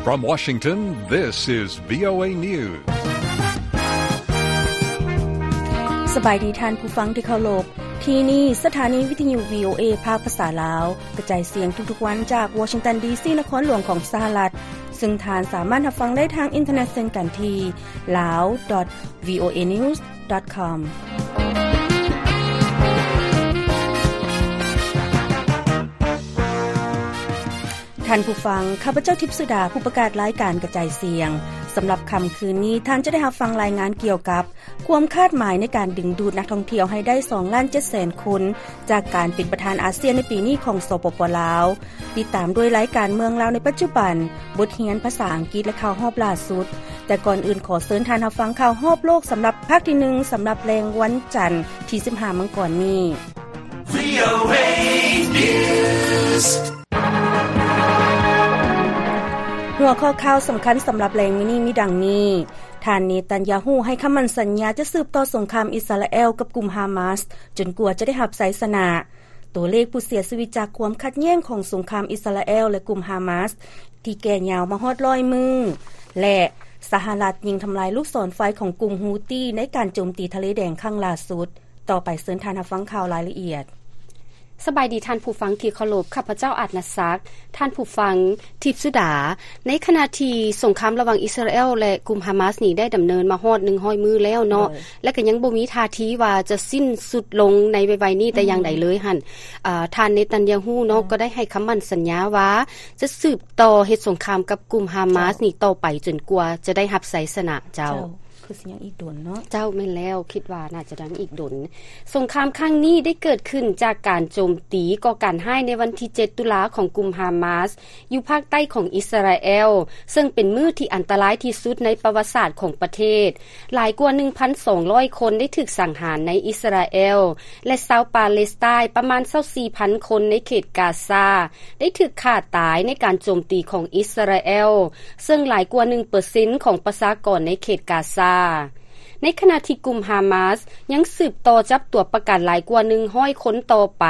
From Washington, this is VOA News. ສະບາຍດີທ່ານຜູ້ຟັງທີ່ເຄົາລົບ. ທີ່ນີ້ສະຖານີວິທະຍຸ VOA ພາກພາສາລາວ ກະຈາຍສຽງທຸກໆວັນຈາກ Washington D C ນະຄອນຫຼວງຂອງສະຫະລັດ, ເຊິ່ງທ່ານສາມາດຮັບຟັງໄດ້ທາງອິນເຕີເນັດເຊັ່ນກັນທີ່ lao dot voanews dot com. ທ່ານຜູ້ຟັງ, ຂ້າພະເຈົ້າ ທິບສຸດາ ຜູ້ປະກາດລາຍການກະຈາຍສຽງ. ສຳລັບຄ່ຳຄືນນີ້, ທ່ານຈະໄດ້ຮັບຟັງລາຍງານກ່ຽວກັບຄວາມຄາດໝາຍໃນການດຶງດູດນັກທ່ອງທ່ຽວໃຫ້ໄດ້ສອງລ້ານເຈັດແສນຄົນ ຈາກການເປັນປະທານອາຊຽນໃນປີນີ້ຂອງ ສປປ ລາວ. ຕິດຕາມດ້ວຍລາຍການເມືອງລາວໃນປັດຈຸບັນ, ບົດຮຽນພາສາອັງກິດ ແລະ ຂ່າວຮອບລ່າສຸດ. ແຕ່ກ່ອນອື່ນ, ຂໍເຊີນທ່ານຮັບຟັງຂ່າວຮອບໂລກສຳລັບພາກທີໜຶ່ງ ສຳລັບແລງວັນຈັນທີສິບຫ້າມັງກອນນີ້. VOA News. ຫົວຂໍ້ຂ່າວສຳຄັນສຳລັບແລງມື້ນີ້ມີດັ່ງນີ້. ທ່ານເນຕັນຍາຮູ້ໃຫ້ຄຳໝັ້ນສັນຍາຈະສືບຕໍ່ສົງຄາມອິສຣາແອລກັບກຸ່ມຮາມາສ ຈົນກວ່າຈະໄດ້ຮັບໄຊຊະນະ. ຕົວເລກຜູ້ເສຍຊີວິດຈາກຄວາມຂັດແຍ່ງຂອງສົງຄາມອິສຣາແອລ ແລະ ກຸ່ມຮາມາສ ທີ່ແກ່ຍາວມາຮອດຮ້ອຍມື້ ແລະ ສະຫະລັດຍິງທຳລາຍລູກສອນໄຟຂອງກຸ່ມຮູ້ຕີໃນການໂຈມຕີທະເລແດງຄັ້ງລ່າສຸດ. ຕໍ່ໄປເຊີນທ່ານຮັບຟັງຂ່າວລາຍລະອຽດ. ສະບາຍດີທ່ານຜູ້ຟັງທີ່ເຄົາລົບ, ຂ້າພະເຈົ້າ ອາດນະສັກ. ທ່ານຜູ້ຟັງ, ທິບສຸດາ, ໃນຂະນະທີ່ສົງຄາມລະຫວ່າງອິສຣາແອລ ແລະ ກຸ່ມຮາມາສນີ້ໄດ້ດຳເນີນມາຮອດໜຶ່ງຮ້ອຍມື້ແລ້ວເນາະ ໂດຍ ແລະ ກໍຍັງບໍ່ມີທ່າທີວ່າຈະສິ້ນສຸດລົງໃນໄວໆນີ້ແຕ່ຢ່າງໃດເລີຍຫັ້ນ ອືມ ອາ ທ່ານເນຕັນຍາຮູ້ເນາະ ເຈົ້າ ກໍໄດ້ໃຫ້ຄຳໝັ້ນສັນຍາວ່າຈະສືບຕໍ່ເຮັດສົງຄາມກັບກຸ່ມຮາມາສ ເຈົ້າ ນີ້ຕໍ່ໄປຈົນກວ່າຈະໄດ້ຮັບໄຊຊະນະ. ເຈົ້າ ເຈົ້າ. ຄືຊິຍັງອີກດົນເນາະ. ເຈົ້າ, ແມ່ນແລ້ວ, ຄິດວ່າໜ້າຈະຍັງອີກດົນ. ສົງຄາມຄັ້ງນີ້ໄດ້ເກີດຂຶ້ນຈາກການໂຈມຕີກໍ່ການຮ້າຍໃນວັນທີເຈັດຕຸລາຂອງກຸ່ມຮາມາສ ຢູ່ພາກໃຕ້ຂອງອິສຣາແອລ, ເຊິ່ງເປັນມື້ທີ່ອັນຕະລາຍທີ່ສຸດໃນປະຫວັດສາດຂອງປະເທດ. ຫຼາຍກວ່າໜຶ່ງພັນສອງຮ້ອຍຄົນໄດ້ຖືກສັງຫານໃນອິສຣາແອລ ແລະ ຊາວປາເລສໄຕນ໌ປະມານຊາວສີ່ພັນຄົນໃນເຂດກາຊາ ໄດ້ຖືກຂ້າຕາຍໃນການໂຈມຕີຂອງອິສຣາແອລ, ເຊິ່ງຫຼາຍກວ່າໜຶ່ງເປີເຊັນຂອງປະຊາກອນໃນເຂດກາຊາ. ໃນຂະນະທີ່ກຸ່ມຮາມາສຍັງສືບຕໍ່ຈັບຕົວປະກັນຫຼາຍກວ່າໜຶ່ງຮ້ອຍຄົນຕໍ່ໄປ,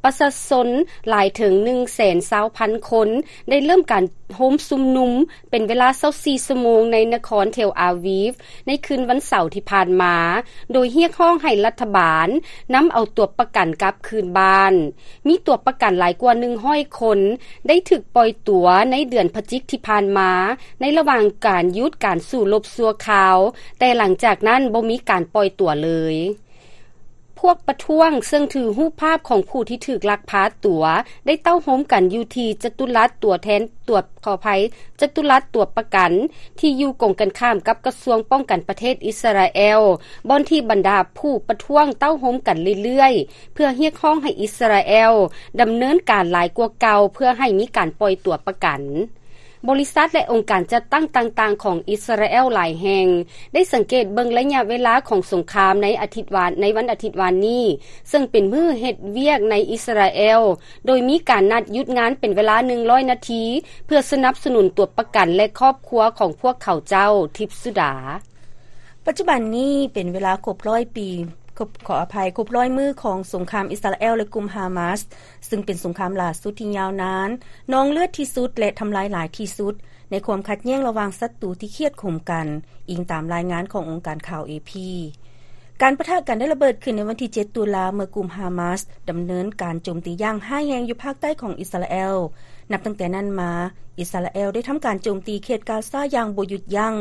ປະຊາຊົນຫຼາຍເຖິງໜຶ່ງແສນຊາວພັນຄົນໄດ້ເລີ່ມການໂຮມຊຸມນຸມເປັນເວລາຊາວສີ່ຊົ່ວໂມງໃນນະຄອນເທລອາວີຟ ໃນຄືນວັນເສົາທີ່ຜ່ານມາ, ໂດຍຮຽກຮ້ອງໃຫ້ລັດຖະບານນຳເອົາຕົວປະກັນກັບຄືນບ້ານ. ມີຕົວປະກັນຫຼາຍກວ່າໜຶ່ງຮ້ອຍຄົນໄດ້ຖືກປ່ອຍຕົວໃນເດືອນພະຈິກທີ່ຜ່ານມາ ໃນລະຫວ່າງການຢຸດການສູ້ລົບຊົ່ວຄາວ, ແຕ່ຫຼັງຈາກນັ້ນບໍ່ມີການປ່ອຍຕົວເລີຍ. ພວກປະທ້ວງເຊິ່ງຖືຮູບພາບຂອງຜູ້ທີ່ຖືກລັກພາຕົວ ໄດ້ເຕົ້າໂຮມກັນຢູ່ທີ່ຈະຕຸລັດຕົວແທນ ຕົວ ຂໍອະໄພ, ຈະຕຸລັດຕົວປະກັນ ທີ່ຢູ່ກົງກັນຂ້າມກັບກະຊວງປ້ອງກັນປະເທດອິສຣາແອລ, ບ່ອນທີ່ບັນດາຜູ້ປະທ້ວງເຕົ້າໂຮມກັນເລື້ອຍໆ ເພື່ອຮຽກຮ້ອງໃຫ້ອິສຣາແອລດຳເນີນການຫຼາຍກວ່າເກົ່າ ເພື່ອໃຫ້ມີການປ່ອຍຕົວປະກັນ. ບໍລິສັດ ແລະ ອົງການຈັດຕັ້ງຕ່າງໆຂອງອິສຣາແອລຫຼາຍແຫ່ງ ໄດ້ສັງເກດເບິ່ງໄລຍະເວລາຂອງສົງຄາມໃນອາທິດວານ, ໃນວັນອາທິດວານນີ້, ເຊິ່ງເປັນມື້ເຮັດວຽກໃນອິສຣາແອລ, ໂດຍມີການນັດຢຸດງານເປັນເວລາໜຶ່ງຮ້ອຍນາທີ ເພື່ອສະໜັບສະໜູນຕົວປະກັນ ແລະ ຄອບຄົວຂອງພວກເຂົາເຈົ້າ. ທິບສຸດາ. ປັດຈຸບັນນີ້ເປັນເວລາຄົບຮ້ອຍປີ, ຄົບ, ຂໍອະໄພ, ຄົບຮ້ອຍມື້ຂອງສົງຄາມອິສຣາແອລ ແລະ ກຸ່ມຮາມາສ, ເຊິ່ງເປັນສົງຄາມລ່າສຸດທີ່ຍາວນານ, ນອງເລືອດທີ່ສຸດ ແລະ ທຳລາຍຫຼາຍທີ່ສຸດ ໃນຄວາມຂັດແຍ່ງລະຫວ່າງສັດຕູທີ່ຄຽດຂົມກັນ, ອີງຕາມລາຍງານຂອງອົງການຂ່າວ ເອພີ. ການປະທະກັນໄດ້ລະເບີດຂຶ້ນໃນວັນທີເຈັດຕຸລາ ເມື່ອກຸ່ມຮາມາສດຳເນີນການໂຈມຕີຢ່າງຮ້າຍແຮງຢູ່ພາກໃຕ້ຂອງອິສຣາແອລ. ນັບຕັ້ງແຕ່ນັ້ນມາ, ອິສຣາແອລໄດ້ທຳການໂຈມຕີເຂດກາຊາຢ່າງບໍ່ຢຸດຢັ້ງ,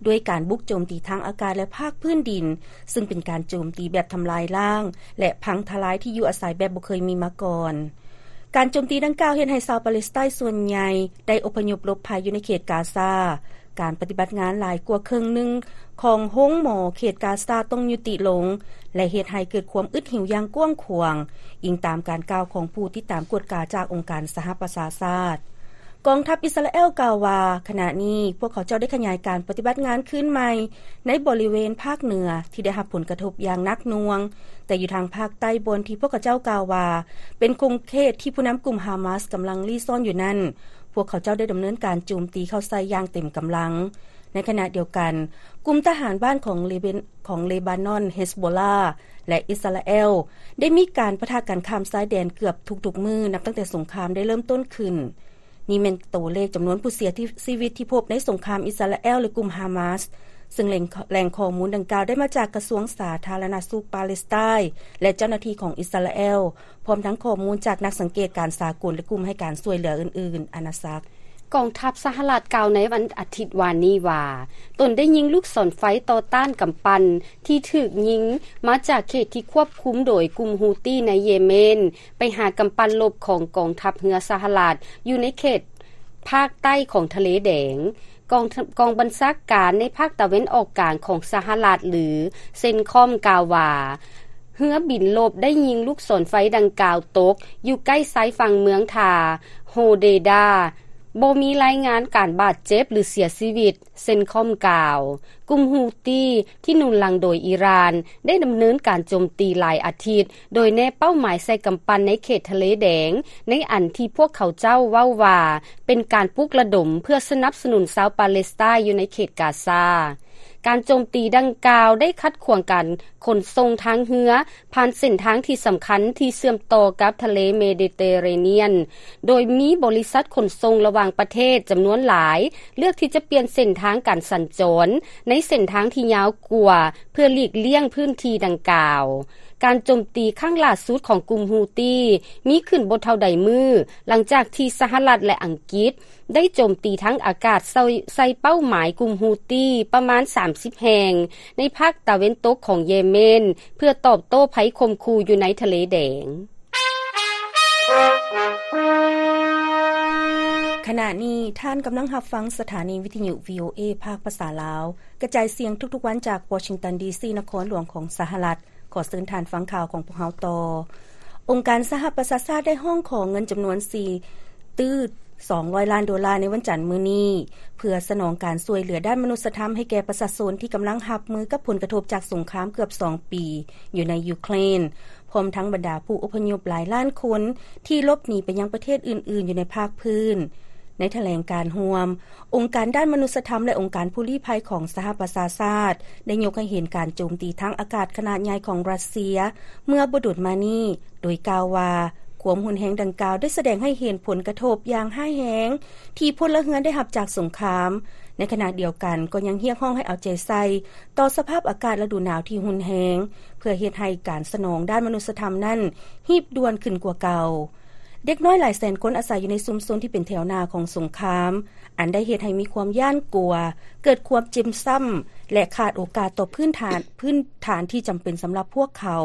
ດ້ວຍການບຸກໂຈມຕີທາງອາກາດ ແລະ ພາກພື້ນດິນ, ເຊິ່ງເປັນການໂຈມຕີແບບທຳລາຍລ້າງ ແລະ ພັງທະລາຍທີ່ຢູ່ອາໄສແບບບໍ່ເຄີຍມີມາກ່ອນ. ການໂຈມຕີດັ່ງກ່າວເຮັດໃຫ້ຊາວປາເລສໄຕສ່ວນໃຫຍ່ໄດ້ອົບພະຍົບຫຼົບໄພຢູ່ໃນເຂດກາຊາ. ການປະຕິບັດງານຫຼາຍກວ່າເຄິ່ງໜຶ່ງຂອງໂຮງໝໍເຂດກາຊາຕ້ອງຍຸຕິລົງ ແລະ ເຮັດໃຫ້ເກີດຄວາມອຶດຫິວຢ່າງກວ້າງຂວາງ, ອີງຕາມການກ່າວຂອງຜູ້ຕິດຕາມກວດກາຈາກອົງການສະຫະປະຊາຊາດ. ກອງທັບອິສຣາແອລກ່າວວ່າ, ຂະນະນີ້ພວກເຂົາເຈົ້າໄດ້ຂະຫຍາຍການປະຕິບັດງານຄືນໃໝ່ໃນບໍລິເວນພາກເໜືອທີ່ໄດ້ຮັບຜົນກະທົບຢ່າງໜັກໜ່ວງ, ແຕ່ຢູ່ທາງພາກໃຕ້ ບ່ອນທີ່ພວກເຂົາເຈົ້າກ່າວວ່າເປັນຂົງເຂດທີ່ຜູ້ນຳກຸ່ມຮາມາສກຳລັງລີ້ຊ່ອນຢູ່ນັ້ນ, ພວກເຂົາເຈົ້າໄດ້ດຳເນີນການໂຈມຕີເຂົ້າໃສ່ຢ່າງເຕັມກຳລັງ. ໃນຂະນະດຽວກັນ, ກຸ່ມທະຫານບ້ານຂອງເລເບນ, ຂອງເລບານອນ, ເຮສໂບລາ ແລະ ອິສຣາແອລ ໄດ້ມີການປະທະກັນຂ້າມຊາຍແດນເກືອບທຸກໆມື້ ນັບຕັ້ງແຕ່ສົງຄາມໄດ້ເລີ່ມຕົ້ນຂຶ້ນ. ນີ້ແມ່ນໂຕເລກຈຳນວນຜູ້ເສຍຊີວິດທີ່ພົບໃນສົງຄາມອິດສະຣາແອລ ແລະ ກຸ່ມຮາມາສ, ເຊິ່ງແຫຼ່ງ ແຫຼ່ງຂໍ້ມູນດັ່ງກ່າວໄດ້ມາຈາກກະຊວງສາທາລະນະສຸກປາເລສໄຕ ແລະ ເຈົ້າໜ້າທີ່ຂອງອິດສະຣາແອລ, ພ້ອມທັງຂໍ້ມູນຈາກນັກສັງເກດການສາກົນ ແລະ ກຸ່ມໃຫ້ການຊ່ວຍເຫຼືອອື່ນໆ. ອານາສັກ. ກອງທັບສະຫະລັດກ່າວໃນວັນອາທິດວານນີ້ວ່າ, ຕົນໄດ້ຍິງລູກສອນໄຟຕໍ່ຕ້ານກຳປັ່ນທີ່ຖືກຍິງມາຈາກເຂດທີ່ຄວບຄຸມໂດຍກຸ່ມຮູ້ຕີໃນເຢເມນ ໄປຫາກຳປັ່ນລົບຂອງກອງທັບເຮືອສະຫະລັດຢູ່ໃນເຂດພາກໃຕ້ຂອງທະເລແດງ. ກອງ ກອງບັນຊາການໃນພາກຕາເວັນອອກກາງຂອງສະຫະລັດ ຫຼື ເຊັນຄອມ ກ່າວວ່າ, ເຮືອບິນລົບໄດ້ຍິງລູກສອນໄຟດັ່ງກ່າວຕົກຢູ່ໃກ້ຊາຍຝັ່ງເມືອງທ່າໂຮເດດາ. ບໍ່ມີລາຍງານການບາດເຈັບ ຫຼື ເສຍຊີວິດ, ເຊັນຄອມ ກ່າວ. ກຸ່ມຮູ້ຕີທີ່ໜູນຫຼັງໂດຍອີຣານ ໄດ້ດຳເນີນການໂຈມຕີຫຼາຍອາທິດ ໂດຍແນບເປົ້າໝາຍໃສ່ກຳປັ່ນໃນເຂດທະເລແດງ, ໃນອັນທີ່ພວກເຂົາເຈົ້າເວົ້າວ່າເປັນການປຸກລະດົມເພື່ອສະໜັບສະໜູນຊາວປາເລສໄຕຢູ່ໃນເຂດກາຊາ. ການໂຈມຕີດັ່ງກ່າວໄດ້ຂັດຂວາງການຂົນສົ່ງທາງເຮືອ ຜ່ານເສັ້ນທາງທີ່ສຳຄັນທີ່ເຊື່ອມຕໍ່ກັບທະເລເມດິເຕເຣນຽນ, ໂດຍມີບໍລິສັດຂົນສົ່ງລະຫວ່າງປະເທດຈຳນວນຫຼາຍ ເລືອກທີ່ຈະປ່ຽນເສັ້ນທາງການສັນຈອນໃນເສັ້ນທາງທີ່ຍາວກວ່າ ເພື່ອຫຼີກລ່ຽງພື້ນທີ່ດັ່ງກ່າວ. ການໂຈມຕີຄັ້ງຫຼ້າສຸດຂອງກຸ່ມຮູ້ຕີມີຂຶ້ນບໍ່ເທົ່າໃດມື້ ຫຼັງຈາກທີ່ສະຫະລັດ ແລະ ອັງກິດ ໄດ້ໂຈມຕີທາງອາກາດໃສ່ ໃສ່ເປົ້າໝາຍກຸ່ມຮູ້ຕີປະມານສາມສິບແຫ່ງ ໃນພາກຕາເວັນຕົກຂອງເຢເມນ ເພື່ອຕອບໂຕ້ໄພຂົ່ມຂູ່ຢູ່ໃນທະເລແດງ. ຂະນະນີ້ທ່ານກຳລັງຮັບຟັງສະຖານີວິທະຍຸ ວີໂອເອ ພາກພາສາລາວ ກະຈາຍສຽງທຸກໆວັນຈາກວໍຊິງຕັນ ດີຊີ ນະຄອນຫຼວງຂອງສະຫະລັດ. ຂໍເຊີນທ່ານຟັງຂ່າວຂອງພວກເຮົາຕໍ່. ອົງການສະຫະປະຊາຊາດໄດ້ຮ້ອງຂໍເງິນຈຳນວນສີ່ຕື້ສອງຮ້ອຍລ້ານໂດລາໃນວັນຈັນມື້ນີ້ ເພື່ອສະໜອງການຊ່ວຍເຫຼືອດ້ານມະນຸດສະທຳໃຫ້ແກ່ປະຊາຊົນທີ່ກຳລັງຮັບມືກັບຜົນກະທົບຈາກສົງຄາມເກືອບສອງປີຢູ່ໃນຢູເຄຣນ, ພ້ອມທັງບັນດາຜູ້ອົບພະຍົບຫຼາຍລ້ານຄົນທີ່ຫຼົບໜີໄປຍັງປະເທດອື່ນໆຢູ່ໃນພາກພື້ນ. ໃນຖະແຫຼງການຮ່ວມ, ອົງການດ້ານມະນຸດສະທຳ ແລະ ອົງການຜູ້ລີ້ໄພຂອງສະຫະປະຊາຊາດ ໄດ້ຍົກໃຫ້ເຫັນການໂຈມຕີທາງອາກາດຂະໜາດໃຫຍ່ຂອງຣັດເຊຍເມື່ອບໍ່ດົນມານີ້, ໂດຍກ່າວວ່າ ຄວາມຮຸນແຮງດັ່ງກ່າວໄດ້ສະແດງໃຫ້ເຫັນຜົນກະທົບຢ່າງຮ້າຍແຮງທີ່ພົນລະເຮືອນໄດ້ຮັບຈາກສົງຄາມ. ໃນຂະນະດຽວກັນກໍຍັງຮຽກຮ້ອງໃຫ້ເອົາໃຈໃສ່ຕໍ່ສະພາບອາກາດລະດູໜາວທີ່ຮຸນແຮງ ເພື່ອເຮັດໃຫ້ການສະໜອງດ້ານມະນຸດສະທຳນັ້ນຮີບດ່ວນຂຶ້ນກວ່າເກົ່າ. ເດັກນ້ອຍຫຼາຍແສນຄົນອາໄສຢູ່ໃນຊຸມຊົນທີ່ເປັນແຖວໜ້າຂອງສົງຄາມ, ອັນໄດ້ເຮັດໃຫ້ມີຄວາມຢ້ານກົວ, ເກີດຄວາມເຈັບຊ້ຳ ແລະ ຂາດໂອກາດຕໍ່ພື້ນຖານ, ພື້ນຖານທີ່ຈຳເປັນສຳລັບພວກເຂົາ.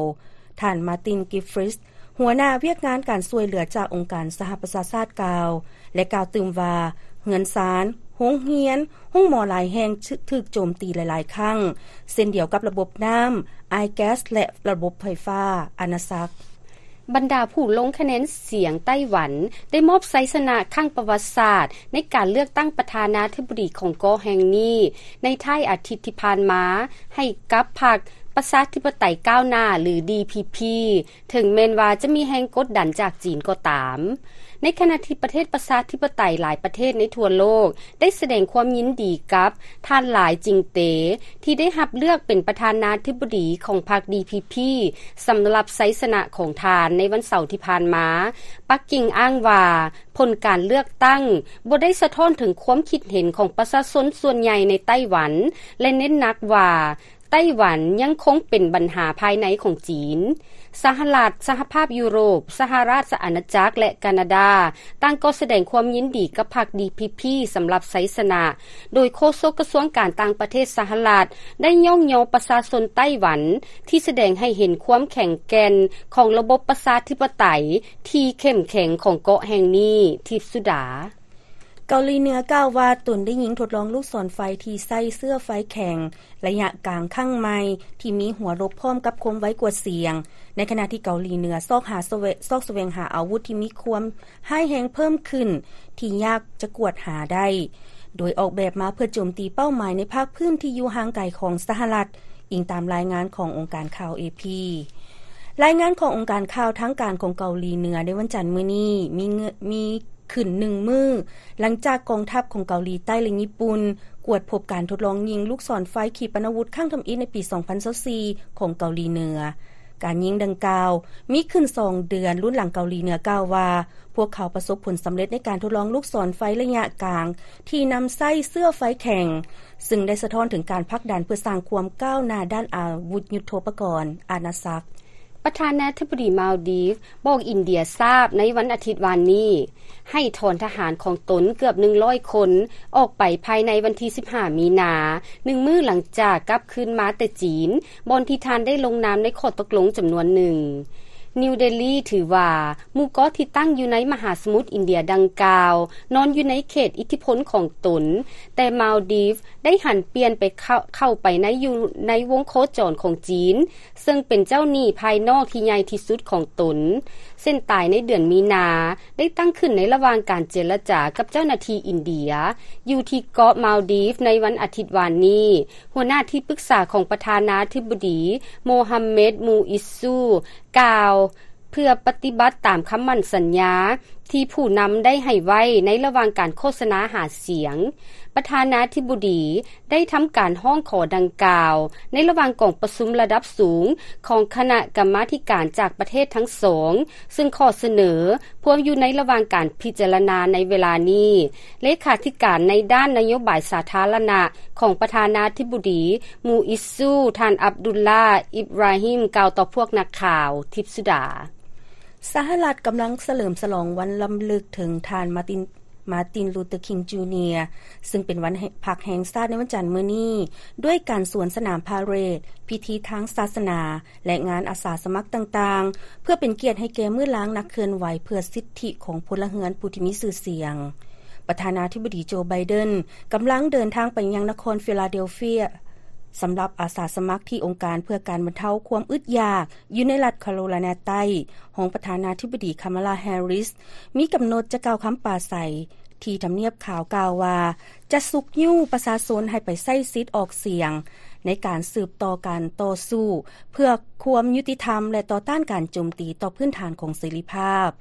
ທ່ານ Martin Griffiths ຫົວໜ້າວຽກງານການຊ່ວຍເຫຼືອຈາກອົງການສະຫະປະຊາຊາດກ່າວ ແລະ ກ່າວຕື່ມວ່າ ເຮືອນຊານ, ໂຮງຮຽນ, ໂຮງໝໍຫຼາຍແຫ່ງຖືກໂຈມຕີຫຼາຍໆຄັ້ງ, ເຊັ່ນດຽວກັບລະບົບນ້ຳ, ອາຍແກັສ ແລະ ລະບົບໄຟຟ້າ. ອານາສັກ. ບັນດາຜູ້ລົງຄະແນນສຽງໄຕ້ຫວັນ ໄດ້ມອບໄຊຊະນະຄັ້ງປະຫວັດສາດໃນການເລືອກຕັ້ງປະທານາທິບໍດີຂອງເກາະແຫ່ງນີ້ ໃນທ້າຍອາທິດທີ່ຜ່ານມາ ໃຫ້ກັບພັກປະຊາທິປະໄຕກ້າວໜ້າ ຫຼື ດີພີພີ ເຖິງແມ່ນວ່າຈະມີແຮງກົດດັນຈາກຈີນກໍຕາມ. ໃນຂະນະທີ່ປະເທດປະຊາທິປະໄຕຫຼາຍປະເທດໃນທົ່ວໂລກ ໄດ້ສະແດງຄວາມຍິນດີກັບທ່ານ ຫຼາຍ ຈິງເຕ ທີ່ໄດ້ຮັບເລືອກເປັນປະທານາທິບໍດີຂອງພັກ ດີພີພີ ສຳລັບໄຊຊະນະຂອງທ່ານໃນວັນເສົາທີ່ຜ່ານມາ. ປັກກິ່ງອ້າງວ່າ ຜົນການເລືອກຕັ້ງບໍ່ໄດ້ສະທ້ອນເຖິງຄວາມຄິດເຫັນຂອງປະຊາຊົນສ່ວນໃຫຍ່ໃນໄຕ້ຫວັນ ແລະ ເນັ້ນໜັກວ່າ ໄຕ້ຫວັນຍັງຄົງເປັນບັນຫາພາຍໃນຂອງຈີນ. ສະຫະລັດ, ສະຫະພາບຢູໂຣບ, ສະຫະລາຊະອານາຈັກ ແລະ ການາດາ ຕ່າງກໍສະແດງຄວາມຍິນດີກັບພັກ ດີພີພີ ສຳລັບໄຊຊະນະ, ໂດຍໂຄສົກກະຊວງການຕ່າງປະເທດສະຫະລັດ ໄດ້ຍ້ອງຍໍປະຊາຊົນໄຕ້ຫວັນ ທີ່ສະແດງໃຫ້ເຫັນຄວາມແຂງແກ່ນຂອງລະບົບປະຊາທິປະໄຕທີ່ເຂັ້ມແຂງຂອງເກາະແຫ່ງນີ້. ທິບສຸດາ. ເກົາຫຼີເໜືອກ່າວວ່າຕົນໄດ້ຍິງທົດລອງລູກສອນໄຟທີ່ໃຊ້ເຊື້ອໄຟແຂງໄລຍະກາງຄັ້ງໃໝ່ ທີ່ມີຫົວລົບພ້ອມກັບຄວາມໄວກວ່າສຽງ, ໃນຂະນະທີ່ເກົາຫຼີເໜືອຊອກຫາສະແຫວ-, ຊອກສະແຫວງຫາອາວຸດທີ່ມີຄວາມຮ້າຍແຮງເພີ່ມຂຶ້ນ ທີ່ຍາກຈະກວດຫາໄດ້, ໂດຍອອກແບບມາເພື່ອໂຈມຕີເປົ້າໝາຍໃນພາກພື້ນທີ່ຢູ່ຫ່າງໄກຂອງສະຫະລັດ, ອີງຕາມລາຍງານຂອງອົງການຂ່າວ ເອ ພີ. ລາຍງານຂອງອົງການຂ່າວທາງການຂອງເກົາຫຼີເໜືອໃນວັນຈັນມື້ນີ້ ມີເງ- ມີ ຂຶ້ນໜຶ່ງມື້ ຫຼັງຈາກກອງທັບຂອງເກົາຫຼີໃຕ້ ແລະ ຍີ່ປຸ່ນ ກວດພົບການທົດລອງຍິງລູກສອນໄຟຂີປະນາວຸດຄັ້ງທຳອິດໃນປີສອງພັນຊາວສີ່ຂອງເກົາຫຼີເໜືອ. ການຍິງດັ່ງກ່າວມີຂຶ້ນສອງເດືອນ ລຸນຫຼັງເກົາຫຼີເໜືອກ່າວວ່າ ພວກເຂົາປະສົບຜົນສຳເລັດໃນການທົດລອງລູກສອນໄຟໄລຍະກາງ ທີ່ນຳໃຊ້ເຊື້ອໄຟແຂງ ຊຶ່ງໄດ້ສະທ້ອນເຖິງການຜັກດັນເພື່ອສ້າງຄວາມກ້າວໜ້າດ້ານອາວຸດຍຸດໂທປະກອນ, ອານາຊັກ. ປະທານາທິບໍດີມາວດີຟບອກອິນເດຍຊາບໃນວັນອາທິດວານນີ້ ໃຫ້ຖອນທະຫານຂອງຕົນເກືອບໜຶ່ງຮ້ອຍຄົນອອກໄປພາຍໃນວັນທີສິບຫ້າມີນາ, ໜຶ່ງມື້ຫຼັງຈາກກັບຄືນມາແຕ່ຈີນ, ບ່ອນທີ່ທ່ານໄດ້ລົງນາມໃນຂໍ້ຕົກລົງຈຳນວນໜຶ່ງ. ນິວເດລີຖືວ່າໝູ່ເກາະທີ່ຕັ້ງຢູ່ໃນມະຫາສະໝຸດອິນເດຍດັ່ງກ່າວ ນອນຢູ່ໃນເຂດອິດທິພົນຂອງຕົນ, ແຕ່ມາວດີຟໄດ້ຫັນປ່ຽນໄປເຂົ້າ ເຂົ້າໄປໃນ ຢູ່ໃນວົງໂຄຈອນຂອງຈີນ ເຊິ່ງເປັນເຈົ້າໜີ້ພາຍນອກທີ່ໃຫຍ່ທີ່ສຸດຂອງຕົນ. ເສັ້ນຕາຍໃນເດືອນມີນາ ໄດ້ຕັ້ງຂຶ້ນໃນລະຫວ່າງການເຈລະຈາກັບເຈົ້າໜ້າທີ່ອິນເດຍ ຢູ່ທີ່ເກາະມາວດີຟໃນວັນອາທິດວານນີ້. ຫົວໜ້າທີ່ປຶກສາຂອງປະທານາທິບໍດີ ໂມຮຳເມັດ ມູອິດຊູ ກ່າວ ເພື່ອປະຕິບັດຕາມຄຳໝັ້ນສັນຍາທີ່ຜູ້ນຳໄດ້ໃຫ້ໄວ້ໃນລະຫວ່າງການໂຄສະນາຫາສຽງ. ປະທານາທິບໍດີໄດ້ທຳການຮ້ອງຂໍດັ່ງກ່າວໃນລະຫວ່າງກອງປະຊຸມລະດັບສູງຂອງຄະນະກຳມາທິການຈາກປະເທດທັງສອງ ຊຶ່ງຂໍ້ສະເໜີພວມຢູ່ໃນລະຫວ່າງການພິຈາລະນາໃນເວລານີ້. ເລຂາທິການໃນດ້ານນະໂຍບາຍສາທາລະນະຂອງປະທານາທິບໍດີ ມູອິດຊູ ທ່ານ ອັບດຸລລາ ອິບຣາຮິມ ກ່າວຕໍ່ພວກນັກຂ່າວ. ທິບສຸດາ. ສະຫະລັດກຳລັງສະເຫຼີມສະຫຼອງວັນລຳລຶກເຖິງທ່ານ ມາຕິນ ມາຕິນ ລູເຕີ ຄິງ ຈູເນຍ ຊຶ່ງເປັນວັນແຫ່ງ ພັກແຫ່ງຊາດໃນວັນຈັນມື້ນີ້ ດ້ວຍການສວນສະໜາມພາເຣດ, ພິທີທາງສາສະໜາ ແລະ ງານອາສາສະໝັກຕ່າງໆ ເພື່ອເປັນກຽດໃຫ້ແກ່ມື້ລາງນັກເຄື່ອນໄຫວເພື່ອສິດທິຂອງພົນລະເຮືອນຜູ້ທີ່ມີຊື່ສຽງ. ປະທານາທິບໍດີ ໂຈ ໄບເດັນ ກຳລັງເດີນທາງໄປຍັງນະຄອນຟີລາເດລເຟຍ ສຳລັບອາສາສະໝັກທີ່ອົງການເພື່ອການບັນເທົາຄວາມອຶດຢາກ ຢູ່ໃນລັດຄາໂຣໄລນາໃຕ້, ຮອງປະທານາທິບໍດີ ຄາມາລາ ແຮຣິສ ມີກຳນົດຈະກ່າວຄຳປາໄສທີ່ທຳນຽບຂາວ ກ່າວວ່າຈະຊຸກຍູ້ປະຊາຊົນໃຫ້ໄປໃຊ້ສິດອອກສຽງ ໃນການສືບຕໍ່ການຕໍ່ສູ້ເພື່ອຄວາມຍຸຕິທຳ ແລະ ຕໍ່ຕ້ານການໂຈມຕີຕໍ່ພື້ນຖານຂອງເສລີພາບ.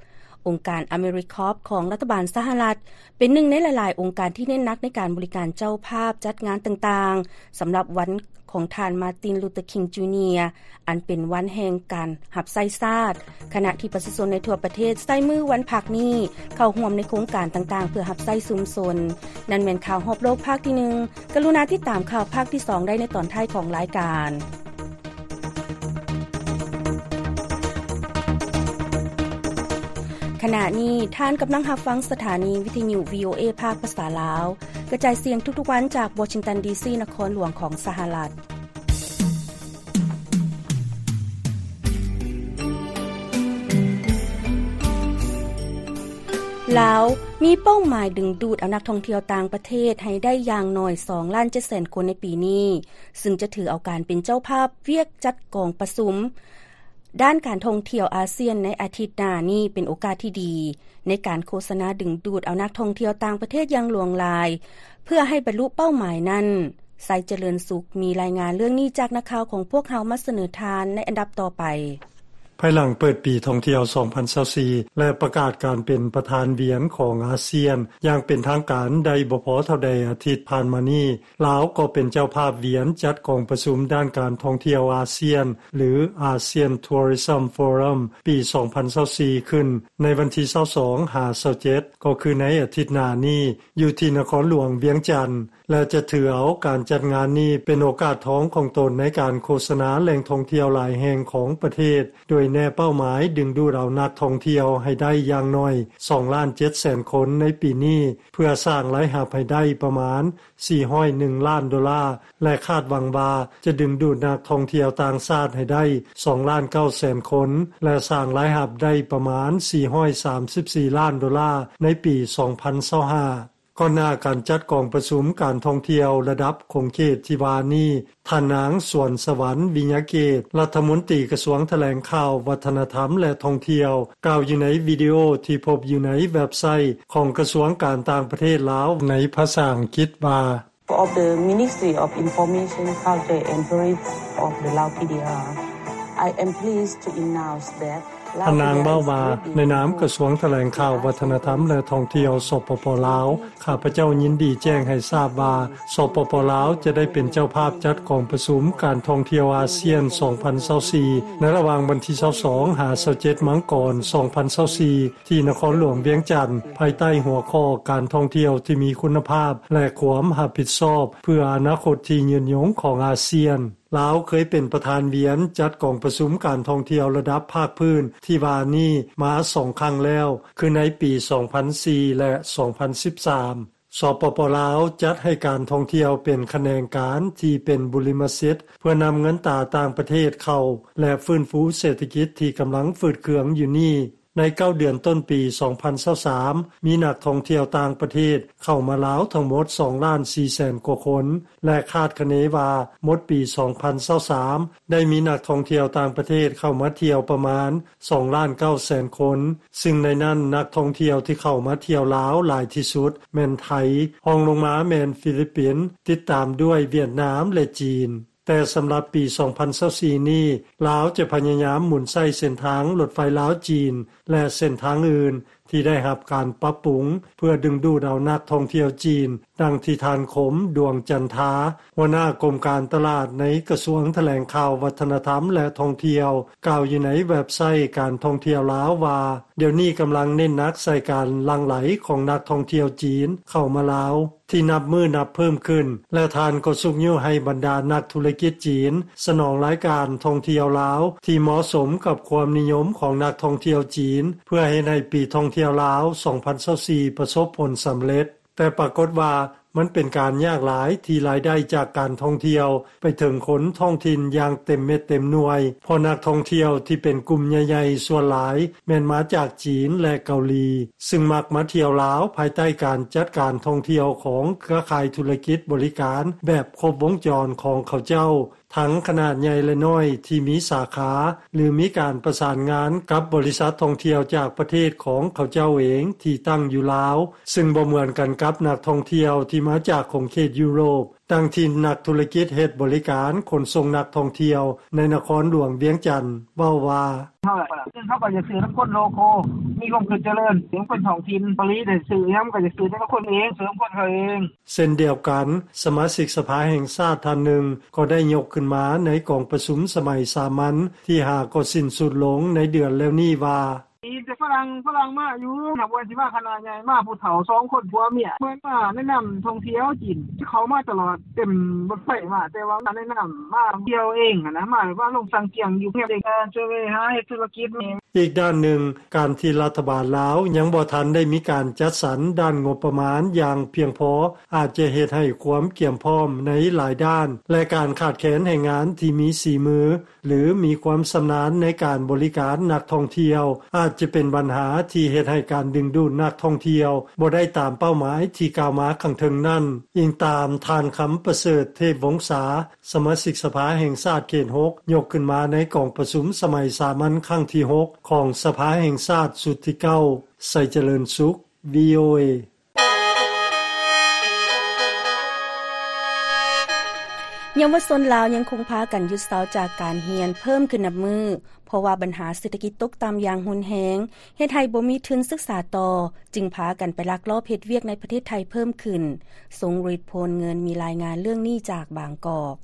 ອົງການ AmeriCorps ຂອງລັດຖະບານສະຫະລັດ ເປັນໜຶ່ງໃນຫຼາຍໆອົງການທີ່ເນັ້ນໜັກໃນການບໍລິການເຈົ້າພາບ, ຈັດງານຕ່າງໆ ສຳລັບວັນຂອງທ່ານ ມາຕິນ ລູເຕີ ຄິງ ຈູເນຍ ອັນເປັນວັນແຫ່ງການຮັບໃຊ້ຊາດ, ຂະນະທີ່ປະຊາຊົນໃນທົ່ວປະເທດໃຊ້ມື້ວັນພັກນີ້ເຂົ້າຮ່ວມໃນໂຄງການຕ່າງໆ ເພື່ອຮັບໃຊ້ຊຸມຊົນ. ນັ້ນແມ່ນຂ່າວຮອບໂລກພາກທີໜຶ່ງ. ກະລຸນາຕິດຕາມຂ່າວພາກທີສອງໄດ້ໃນຕອນທ້າຍຂອງລາຍການ. ຂະນະນີ້ທ່ານກຳລັງຮັບຟັງສະຖານີວິທະຍຸ ວີໂອເອ ພາກພາສາລາວ ກະຈາຍສຽງທຸກໆວັນຈາກວໍຊິງຕັນ ດີຊີ ນະຄອນຫຼວງຂອງສະຫະລັດ. ລາວມີເປົ້າໝາຍດຶງດູດເອົານັກທ່ອງທ່ຽວຕ່າງປະເທດໃຫ້ໄດ້ຢ່າງໜ້ອຍສອງລ້ານເຈັດແສນຄົນໃນປີນີ້, ຊຶ່ງຈະຖືເອົາການເປັນເຈົ້າພາບວຽກຈັດກອງປະຊຸມ ດ້ານການທ່ອງທ່ຽວອາຊຽນໃນອາທິດໜ້ານີ້ເປັນໂອກາດທີ່ດີ ໃນການໂຄສະນາດຶງດູດເອົານັກທ່ອງທ່ຽວຕ່າງປະເທດຢ່າງຫຼວງຫຼາຍ ເພື່ອໃຫ້ບັນລຸເປົ້າໝາຍນັ້ນ. ໄຊຈະເລີນສຸກ ມີລາຍງານເລື່ອງນີ້ຈາກນັກຂ່າວຂອງພວກເຮົາມາສະເໜີທ່ານໃນອັນດັບຕໍ່ໄປ. ພາຍຫຼັງເປີດປີທ່ອງທ່ຽວສອງພັນຊາວສີ່ ແລະ ປະກາດການເປັນປະທານວຽນຂອງອາຊຽນຢ່າງເປັນທາງການໄດ້ບໍ່ພໍເທົ່າໃດອາທິດຜ່ານມານີ້, ລາວກໍເປັນເຈົ້າພາບວຽນຈັດກອງປະຊຸມດ້ານການທ່ອງທ່ຽວອາຊຽນ ຫຼື ASEAN Tourism Forum ປີສອງພັນຊາວສີ່ ຂຶ້ນໃນວັນທີຊາວສອງຫາຊາວເຈັດ ກໍຄືໃນອາທິດໜ້ານີ້ ຢູ່ທີ່ນະຄອນຫຼວງວຽງຈັນ ແລະ ຈະຖືເອົາການຈັດງານນີ້ເປັນໂອກາດທອງຂອງຕົນໃນການໂຄສະນາແຫຼ່ງທ່ອງທ່ຽວຫຼາຍແຫ່ງຂອງປະເທດ, ໂດຍແນເປົ້າໝາຍດຶງດູດເອົານັກທ່ອງທ່ຽວໃຫ້ໄດ້ຢ່າງໜ້ອຍສອງລ້ານເຈັດແສນຄົນໃນປີນີ້, ເພື່ອສ້າງລາຍຮັບໃຫ້ໄດ້ປະມານ ສີ່ຮ້ອຍໜຶ່ງລ້ານໂດລາ ແລະ ຄາດຫວັງວ່າຈະດຶງດູດນັກທ່ອງທ່ຽວຕ່າງຊາດໃຫ້ໄດ້ສອງລ້ານເກົ້າແສນຄົນ ແລະ ສ້າງລາຍຮັບໄດ້ປະມານສີ່ຮ້ອຍສາມສິບສີ່ລ້ານໂດລາໃນປີສອງພັນຊາວຫ້າ. ກ່ອນໜ້າການຈັດກອງປະຊຸມການທ່ອງທ່ຽວລະດັບຂົງເຂດທີ່ວ່ານີ້, ທ່ານນາງ ສວນສະຫວັນ ວິຍະເກດ ລັດຖະມົນຕີກະຊວງຖະແຫຼງຂ່າວ, ວັດທະນະທຳ ແລະ ທ່ອງທ່ຽວ ກ່າວຢູ່ໃນວິດີໂອທີ່ພົບຢູ່ໃນເວັບໄຊຂອງກະຊວງການຕ່າງປະເທດລາວໃນພາສາອັງກິດວ່າ of the Ministry of Information, Culture and Tourism of the Lao P D R, I am pleased to announce that ທ່ານນາງເວົ້າວ່າ ໃນນາມກະຊວງຖະແຫຼງຂ່າວ ວັດທະນະທຳ ແລະ ທ່ອງທ່ຽວ ສປປ ລາວ ຂ້າພະເຈົ້າຍິນດີແຈ້ງໃຫ້ຊາບວ່າ ສປປ ລາວ ຈະໄດ້ເປັນເຈົ້າພາບຈັດກອງປະຊຸມການທ່ອງທ່ຽວອາຊຽນ ສອງພັນຊາວສີ່ ໃນລະຫວ່າງວັນທີ ຊາວສອງ ຫາ ຊາວເຈັດ ມັງກອນ ສອງພັນຊາວສີ່ ທີ່ນະຄອນຫຼວງວຽງຈັນ ພາຍໃຕ້ຫົວຂໍ້ການທ່ອງທ່ຽວທີ່ມີຄຸນນະພາບ ແລະ ຄວາມຮັບຜິດຊອບ ເພື່ອອະນາຄົດທີ່ຍືນຍົງຂອງອາຊຽນ. ລາວເຄີຍເປັນປະທານວຽນຈັດກອງປະຊຸມການທ່ອງທ່ຽວລະດັບພາກພື້ນທີ່ວ່ານີ້ມາສອງຄັ້ງແລ້ວ ຄືໃນປີສອງພັນສີ່ ແລະ ສອງພັນສິບສາມ. ສປປ ລາວ ຈັດໃຫ້ການທ່ອງທ່ຽວເປັນຂະແໜງການທີ່ເປັນບຸລິມະສິດ ເພື່ອນຳເງິນຕາຕ່າງປະເທດເຂົ້າ ແລະ ຟື້ນຟູເສດຖະກິດທີ່ກຳລັງຝືດເຄືອງຢູ່ນີ້. ໃນເກົ້າເດືອນຕົ້ນປີສອງພັນຊາວສາມ ມີນັກທ່ອງທ່ຽວຕ່າງປະເທດເຂົ້າມາລາວທັງໝົດສອງລ້ານສີ່ແສນກວ່າຄົນ ແລະ ຄາດຄະເນວ່າໝົດປີສອງພັນຊາວສາມ ໄດ້ມີນັກທ່ອງທ່ຽວຕ່າງປະເທດເຂົ້າມາທ່ຽວປະມານສອງລ້ານເກົ້າແສນຄົນ, ຊຶ່ງໃນນັ້ນນັກທ່ອງທ່ຽວທີ່ເຂົ້າມາທ່ຽວລາວຫຼາຍທີ່ສຸດແມ່ນໄທ, ຮອງລົງມາແມ່ນຟີລິບປິນ, ຕິດຕາມດ້ວຍຫວຽດນາມ ແລະ ຈີນ. ແຕ່ສຳລັບປີສອງພັນຊາວສີ່ນີ້ ລາວຈະພະຍາຍາມໝູນໃຊ້ເສັ້ນທາງລົດໄຟລາວ-ຈີນ ແລະ ເສັ້ນທາງອື່ນທີ່ໄດ້ຮັບການປັບປຸງ ເພື່ອດຶງດູດເອົານັກທ່ອງທ່ຽວຈີນ, ດັ່ງທີ່ທ່ານ ຄົມ ດວງຈັນທາ ຫົວໜ້າກົມການຕະຫຼາດໃນກະຊວງຖະແຫຼງຂ່າວ ວັດທະນະທຳ ແລະ ທ່ອງທ່ຽວ ກ່າວຢູ່ໃນເວັບໄຊການທ່ອງທ່ຽວລາວວ່າ ດຽວນີ້ກຳລັງເນັ້ນໜັກໃສ່ການຫຼັ່ງໄຫຼຂອງນັກທ່ອງທ່ຽວຈີນເຂົ້າມາລາວ ທີ່ນັບມື້ນັບເພີ່ມຂຶ້ນ ແລະ ທ່ານກໍຊຸກຍູ້ໃຫ້ບັນດານັກທຸລະກິດຈີນສະໜອງລາຍການທ່ອງທ່ຽວລາວທີ່ເໝາະສົມກັບຄວາມນິຍົມຂອງນັກທ່ອງທ່ຽວຈີນ ເພື່ອເຮັດໃຫ້ປີທ່ອງທ່ຽວລາວສອງພັນຊາວສີ່ປະສົບຜົນສຳເລັດ. ແຕ່ປາກົດວ່າມັນເປັນການຍາກຫຼາຍທີ່ລາຍໄດ້ຈາກການທ່ອງທ່ຽວໄປເຖິງຄົນທ້ອງຖິ່ນຢ່າງເຕັມເມັດເຕັມໜ່ວຍ ເພາະນັກທ່ອງທ່ຽວທີ່ເປັນກຸ່ມໃຫຍ່ໆສ່ວນຫຼາຍແມ່ນມາຈາກຈີນ ແລະ ເກົາຫຼີ ຊຶ່ງມັກມາທ່ຽວລາວພາຍໃຕ້ການຈັດການທ່ອງທ່ຽວຂອງເຄືອຂ່າຍທຸລະກິດບໍລິການແບບຄົບວົງຈອນຂອງເຂົາເຈົ້າ ທັງຂະໜາດໃຫຍ່ ແລະ ນ້ອຍ ທີ່ມີສາຂາ ຫຼື ມີການປະສານງານກັບບໍລິສັດທ່ອງທ່ຽວຈາກປະເທດຂອງເຂົາເຈົ້າເອງທີ່ຕັ້ງຢູ່ລາວ ຊຶ່ງບໍ່ເໝືອນກັນກັບນັກທ່ອງທ່ຽວທີ່ມາຈາກຂົງເຂດຢູໂຣບ ດັ່ງທີ່ນັກທຸລະກິດເຮັດບໍລິການຂົນສົ່ງນັກທ່ອງທ່ຽວໃນນະຄອນຫຼວງວຽງຈັນເວົ້າວ່າ ເຮົາ ເຮົາກໍຢາກຊື້ນຳຄົນໂລໂຄ ມີຄວາມຄິດຈະເລີນ ເປັນຄົນທ້ອງຖິ່ນ ເກົາຫຼີໄດ້ຊື້ຫຍັງກໍຢາກຊື້ນຳຄົນເອງ ຊື້ນຳຄົນເຮົາເອງ. ເຊັ່ນດຽວກັນ, ສະມາຊິກສະພາແຫ່ງຊາດທ່ານໜຶ່ງກໍໄດ້ຍົກຂຶ້ນມາໃນກອງປະຊຸມສະໄໝສາມັນທີຫ້າກໍສິ້ນສຸດລົງໃນເດືອນແລ້ວນີ້ວ່າ ມີແຕ່ຝຣັ່ງ ຝຣັ່ງມາຢູ່ ນັບວ່າຊິມາຄະນະໃຫຍ່ ມາຜູ້ເຖົ້າສອງຄົນຜົວເມຍ ເພິ່ນມາແນະນຳທ່ອງທ່ຽວຈີນ ເຂົ້າມາຕະຫຼອດ ເຕັມລົດໄຟມາ ແຕ່ວ່າມາແນະນຳ ມາທ່ຽວເອງຫັ້ນນະ ມາແບບວ່າລົງສັງກຽງຢູ່ເຮືອນເດັກ ຊ່ວຍຫາເຮັດທຸລະກິດ. ອີກດ້ານໜຶ່ງ, ການທີ່ລັດຖະບານລາວຍັງບໍ່ທັນໄດ້ມີການຈັດສັນດ້ານງົບປະມານຢ່າງພຽງພໍ ອາດຈະເຮັດໃຫ້ຄວາມກຽມພ້ອມໃນຫຼາຍດ້ານ ແລະ ການຂາດແຄນແຮງງານທີ່ມີສີມື ຫຼື ມີຄວາມຊຳນານໃນການບໍລິການນັກທ່ອງທ່ຽວ ອາດຈະເປັນບັນຫາທີ່ເຮັດໃຫ້ການດຶງດູດນັກທ່ອງທ່ຽວບໍ່ໄດ້ຕາມເປົ້າໝາຍທີ່ກ່າວມາຂ້າງເທິງນັ້ນ, ອີງຕາມທ່ານ ຄຳປະເສີດ ເທບວົງສາ ສະມາຊິກສະພາແຫ່ງຊາດເຂດຫົກ ຍົກຂຶ້ນມາໃນກອງປະຊຸມສະໄໝສາມັນຄັ້ງທີຫົກ ຂອງສະພາແຫ່ງຊາດຊຸດທີເກົ້າ. ໄຊຈະເລີນສຸກ ວີໂອເອ. ເຍົາວະຊົນລາວຍັງຄົງພາກັນຢຸດເຊົາຈາກການຮຽນເພີ່ມຂຶ້ນນັບມື້ ເພາະວ່າບັນຫາເສດຖະກິດຕົກຕ່ຳຢ່າງຮຸນແຮງ ເຮັດໃຫ້ບໍ່ມີທຶນສຶກສາຕໍ່ ຈຶ່ງພາກັນໄປລັກລອບເຮັດວຽກໃນປະເທດໄທເພີ່ມຂຶ້ນ. ຊົງລິດ ໂພນເງິນ ມີລາຍງານເລື່ອງນີ້ຈາກບາງກອກ.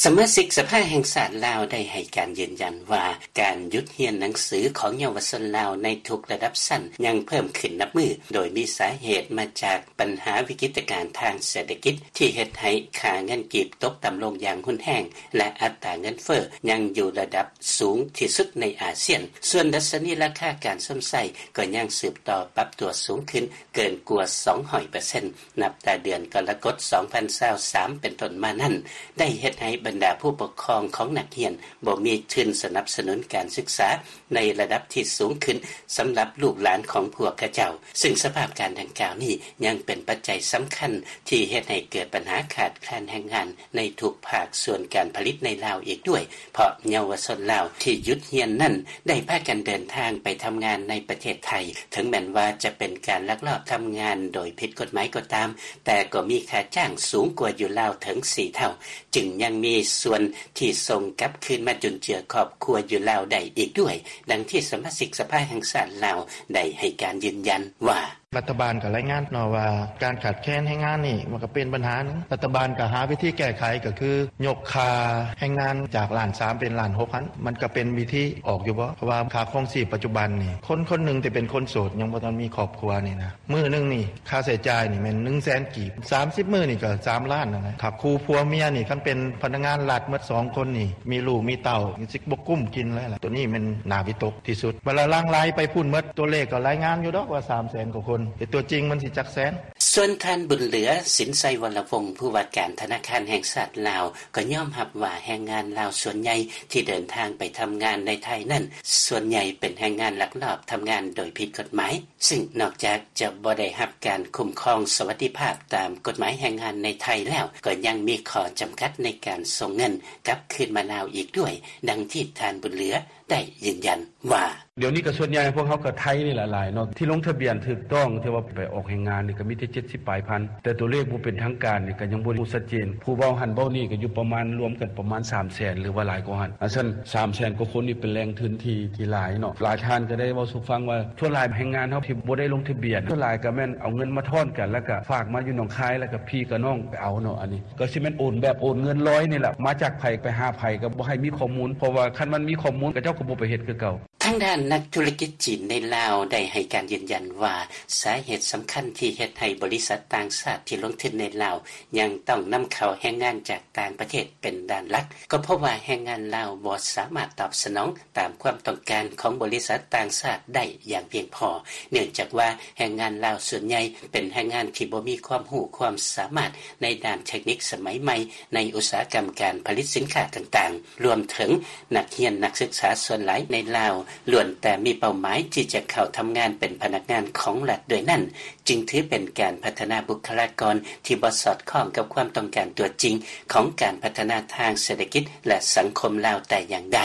ສະມາຊິກສະພາແຫ່ງຊາດລາວໄດ້ໃຫ້ການຢືນຢັນວ່າ ການຢຸດຮຽນໜັງສືຂອງເຍົາວະຊົນລາວໃນທຸກລະດັບຊັ້ນຍັງເພີ່ມຂຶ້ນນັບມື້ ໂດຍມີສາເຫດມາຈາກບັນຫາວິກິດຕະການທາງເສດຖະກິດ ທີ່ເຮັດໃຫ້ຄ່າເງິນກີບຕົກຕ່ຳລົງຢ່າງຮຸນແຮງ ແລະ ອັດຕາເງິນເຟີ້ຍັງຢູ່ລະດັບສູງທີ່ສຸດໃນອາຊຽນ. ສ່ວນດັດຊະນີລາຄາການຊົມໃຊ້ກໍຍັງສືບຕໍ່ປັບຕົວສູງຂຶ້ນເກີນກວ່າສອງຮ້ອຍເປີເຊັນ ນັບແຕ່ເດືອນກໍລະກົດ ສອງພັນຊາວສາມ ເປັນຕົ້ນມານັ້ນ ໄດ້ເຮັດໃຫ້ບັນດາຜູ້ປົກຄອງຂອງນັກຮຽນບໍ່ມີທຶນສະໜັບສະໜູນການສຶກສາໃນລະດັບທີ່ສູງຂຶ້ນສຳລັບລູກຫຼານຂອງພວກເຂົາເຈົ້າ, ຊຶ່ງສະພາບການດັ່ງກ່າວນີ້ຍັງເປັນປັດໄຈສຳຄັນທີ່ເຮັດໃຫ້ເກີດບັນຫາຂາດແຄນແຮງງານໃນທຸກພາກສ່ວນການຜະລິດໃນລາວອີກດ້ວຍ, ເພາະເຍົາວະຊົນລາວທີ່ຢຸດຮຽນນັ້ນໄດ້ພາກັນເດີນທາງໄປທຳງານໃນປະເທດໄທ, ເຖິງແມ່ນວ່າຈະເປັນການລັກລອບທຳງານໂດຍຜິດກົດໝາຍກໍຕາມ, ແຕ່ກໍມີຄ່າຈ້າງສູງກວ່າຢູ່ລາວເຖິງສີ່ເທົ່າ, ຈຶ່ງຍັງມີ ມີສ່ວນທີ່ສົ່ງກັບຄືນມາຈຸນເຈືອຄອບຄົວຢູ່ລາວໄດ້ອີກດ້ວຍ, ດັ່ງທີ່ສະມາຊິກສະພາແຫ່ງຊາດລາວໄດ້ໃຫ້ການຢືນຢັນວ່າ: ລັດຖະບານກໍລາຍງານເນາະວ່າ ການຂາດແຄນແຮງງານນີ້ມັນກໍເປັນບັນຫາໜຶ່ງ, ລັດຖະບານກໍຫາວິທີແກ້ໄຂ ກໍຄືຍົກຄ່າແຮງງານຈາກລ້ານສາມເປັນລ້ານຫົກຫັ້ນ, ມັນກໍເປັນວິທີອອກຢູ່ບໍ່? ເພາະວ່າຄ່າຄອງຊີບປັດຈຸບັນນີ້ ຄົນຄົນໜຶ່ງທີ່ເປັນຄົນໂສດ ຍັງບໍ່ທັນມີຄອບຄົວນີ້ນະ ມື້ໜຶ່ງນີ້ຄ່າໃຊ້ຈ່າຍນີ້ແມ່ນໜຶ່ງແສນກີບ, ສາມສິບມື້ນີ້ກໍສາມລ້ານນັ້ນແຫຼະ. ຖ້າຄູ່ຜົວເມຍນີ້ ຄັນເປັນພະນັກງານລັດໝົດສອງຄົນນີ້ ມີລູກມີເຕົ້າ ຊິບໍ່ກຸ້ມກິນເລີຍລະ. ໂຕນີ້ແມ່ນໜ້າວິຕົກທີ່ສຸດ. ເວລາຫຼັ່ງໄຫຼໄປພຸ້ນໝົດ ຕົວເລກກໍລາຍງານຢູ່ດອກວ່າສາມແສນກວ່າຄົນ, ແຕ່ຕົວຈິງມັນຊິຈັກແສນ? ສ່ວນທ່ານ ບຸນເຫຼືອ ສິນໄຊວໍລະວົງ ຜູ້ວ່າການທະນາຄານແຫ່ງຊາດລາວ ກໍຍອມຮັບວ່າແຮງງານລາວສ່ວນໃຫຍ່ທີ່ເດີນທາງໄປທຳງານໃນໄທນັ້ນ ສ່ວນໃຫຍ່ເປັນແຮງງານລັກລອບທຳງານໂດຍຜິດກົດໝາຍ, ຊຶ່ງນອກຈາກຈະບໍ່ໄດ້ຮັບການຄຸ້ມຄອງສະຫວັດດີພາບຕາມກົດໝາຍແຮງງານໃນໄທແລ້ວ, ກໍຍັງມີຂໍ້ຈຳກັດໃນການສົ່ງເງິນກັບຄືນມາລາວອີກດ້ວຍ, ດັ່ງທີ່ທ່ານ ບຸນເຫຼືອ ໄດ້ຢືນຢັນວ່າ: ດຽວນີ້ກໍສ່ວນໃຫຍ່ພວກເຮົາກໍໄທນີ້ແຫຼະຫຼາຍເນາະ ທີ່ລົງທະບຽນຖືກຕ້ອງ ທີ່ວ່າໄປອອກແຮງງານນີ້ ກໍມີແຕ່ເຈັດສິບປາຍພັນ, ແຕ່ຕົວເລກບໍ່ເປັນທາງການນີ້ກໍຍັງບໍ່ຮູ້ຊັດເຈນ. ຜູ້ເວົ້າຫັ້ນເວົ້ານີ້ກໍຢູ່ປະມານ ລວມກັນປະມານສາມແສນ ຫຼືວ່າຫຼາຍກວ່າຫັ້ນ. ອັນຊັ້ນ ສາມແສນກວ່າຄົນນີ້ເປັນແຫຼ່ງທຶນທີ່ ທີ່ຫຼາຍເນາະ. ຫຼາຍທ່ານກໍໄດ້ເວົ້າສູ່ຟັງວ່າ ສ່ວນຫຼາຍແຮງງານເຮົາທີ່ບໍ່ໄດ້ລົງທະບຽນ ສ່ວນຫຼາຍກໍແມ່ນເອົາເງິນມາທ້ອນກັນ ແລ້ວກໍຝາກມາຢູ່ໜອງຄາຍ ແລ້ວກໍພີ່ກັບນ້ອງໄປເອົາເນາະ. ອັນນີ້ກໍຊິແມ່ນໂອນແບບໂອນເງິນລອຍນີ້ແຫຼະ, ມາຈາກໃຜໄປຫາໃຜກໍບໍ່ໃຫ້ມີຂໍ້ມູນ, ເພາະວ່າຄັນມັນມີຂໍ້ມູນ ເຂົາເຈົ້າກໍບໍ່ໄປເຮັດຄືເກົ່າ. ທາງດ້ານນັກທຸລະກິດຈີນໃນລາວໄດ້ໃຫ້ການຢືນຢັນວ່າ ສາເຫດສຳຄັນທີ່ເຮັດໃຫ້ບໍລິສັດຕ່າງຊາດທີ່ລົງທຶນໃນລາວ ຍັງຕ້ອງນຳເຂົ້າແຮງງານຈາກຕ່າງປະເທດເປັນດ້ານຫຼັກ ກໍເພາະວ່າແຮງງານລາວບໍ່ສາມາດຕອບສະໜອງຕາມຄວາມຕ້ອງການຂອງບໍລິສັດຕ່າງຊາດໄດ້ຢ່າງພຽງພໍ, ເນື່ອງຈາກວ່າແຮງງານລາວສ່ວນໃຫຍ່ເປັນແຮງງານທີ່ບໍ່ມີຄວາມຮູ້ຄວາມສາມາດໃນດ້ານເຕັກນິກສະໄໝໃໝ່ ໃນອຸດສາຫະກຳການຜະລິດສິນຄ້າຕ່າງໆ. ລວມເຖິງນັກຮຽນນັກສຶກສາສ່ວນຫຼາຍໃນລາວ ລ້ວນແຕ່ມີເປົ້າໝາຍທີ່ຈະເຂົ້າທຳງານເປັນພະນັກງານຂອງລັດດ້ວຍນັ້ນ, ຈຶ່ງຖືເປັນການພັດທະນາບຸກຄະລາກອນທີ່ບໍ່ສອດຄ່ອງກັບຄວາມຕ້ອງການຕົວຈິງຂອງການພັດທະນາທາງເສດຖະກິດ ແລະ ສັງຄົມລາວແຕ່ຢ່າງໃດ.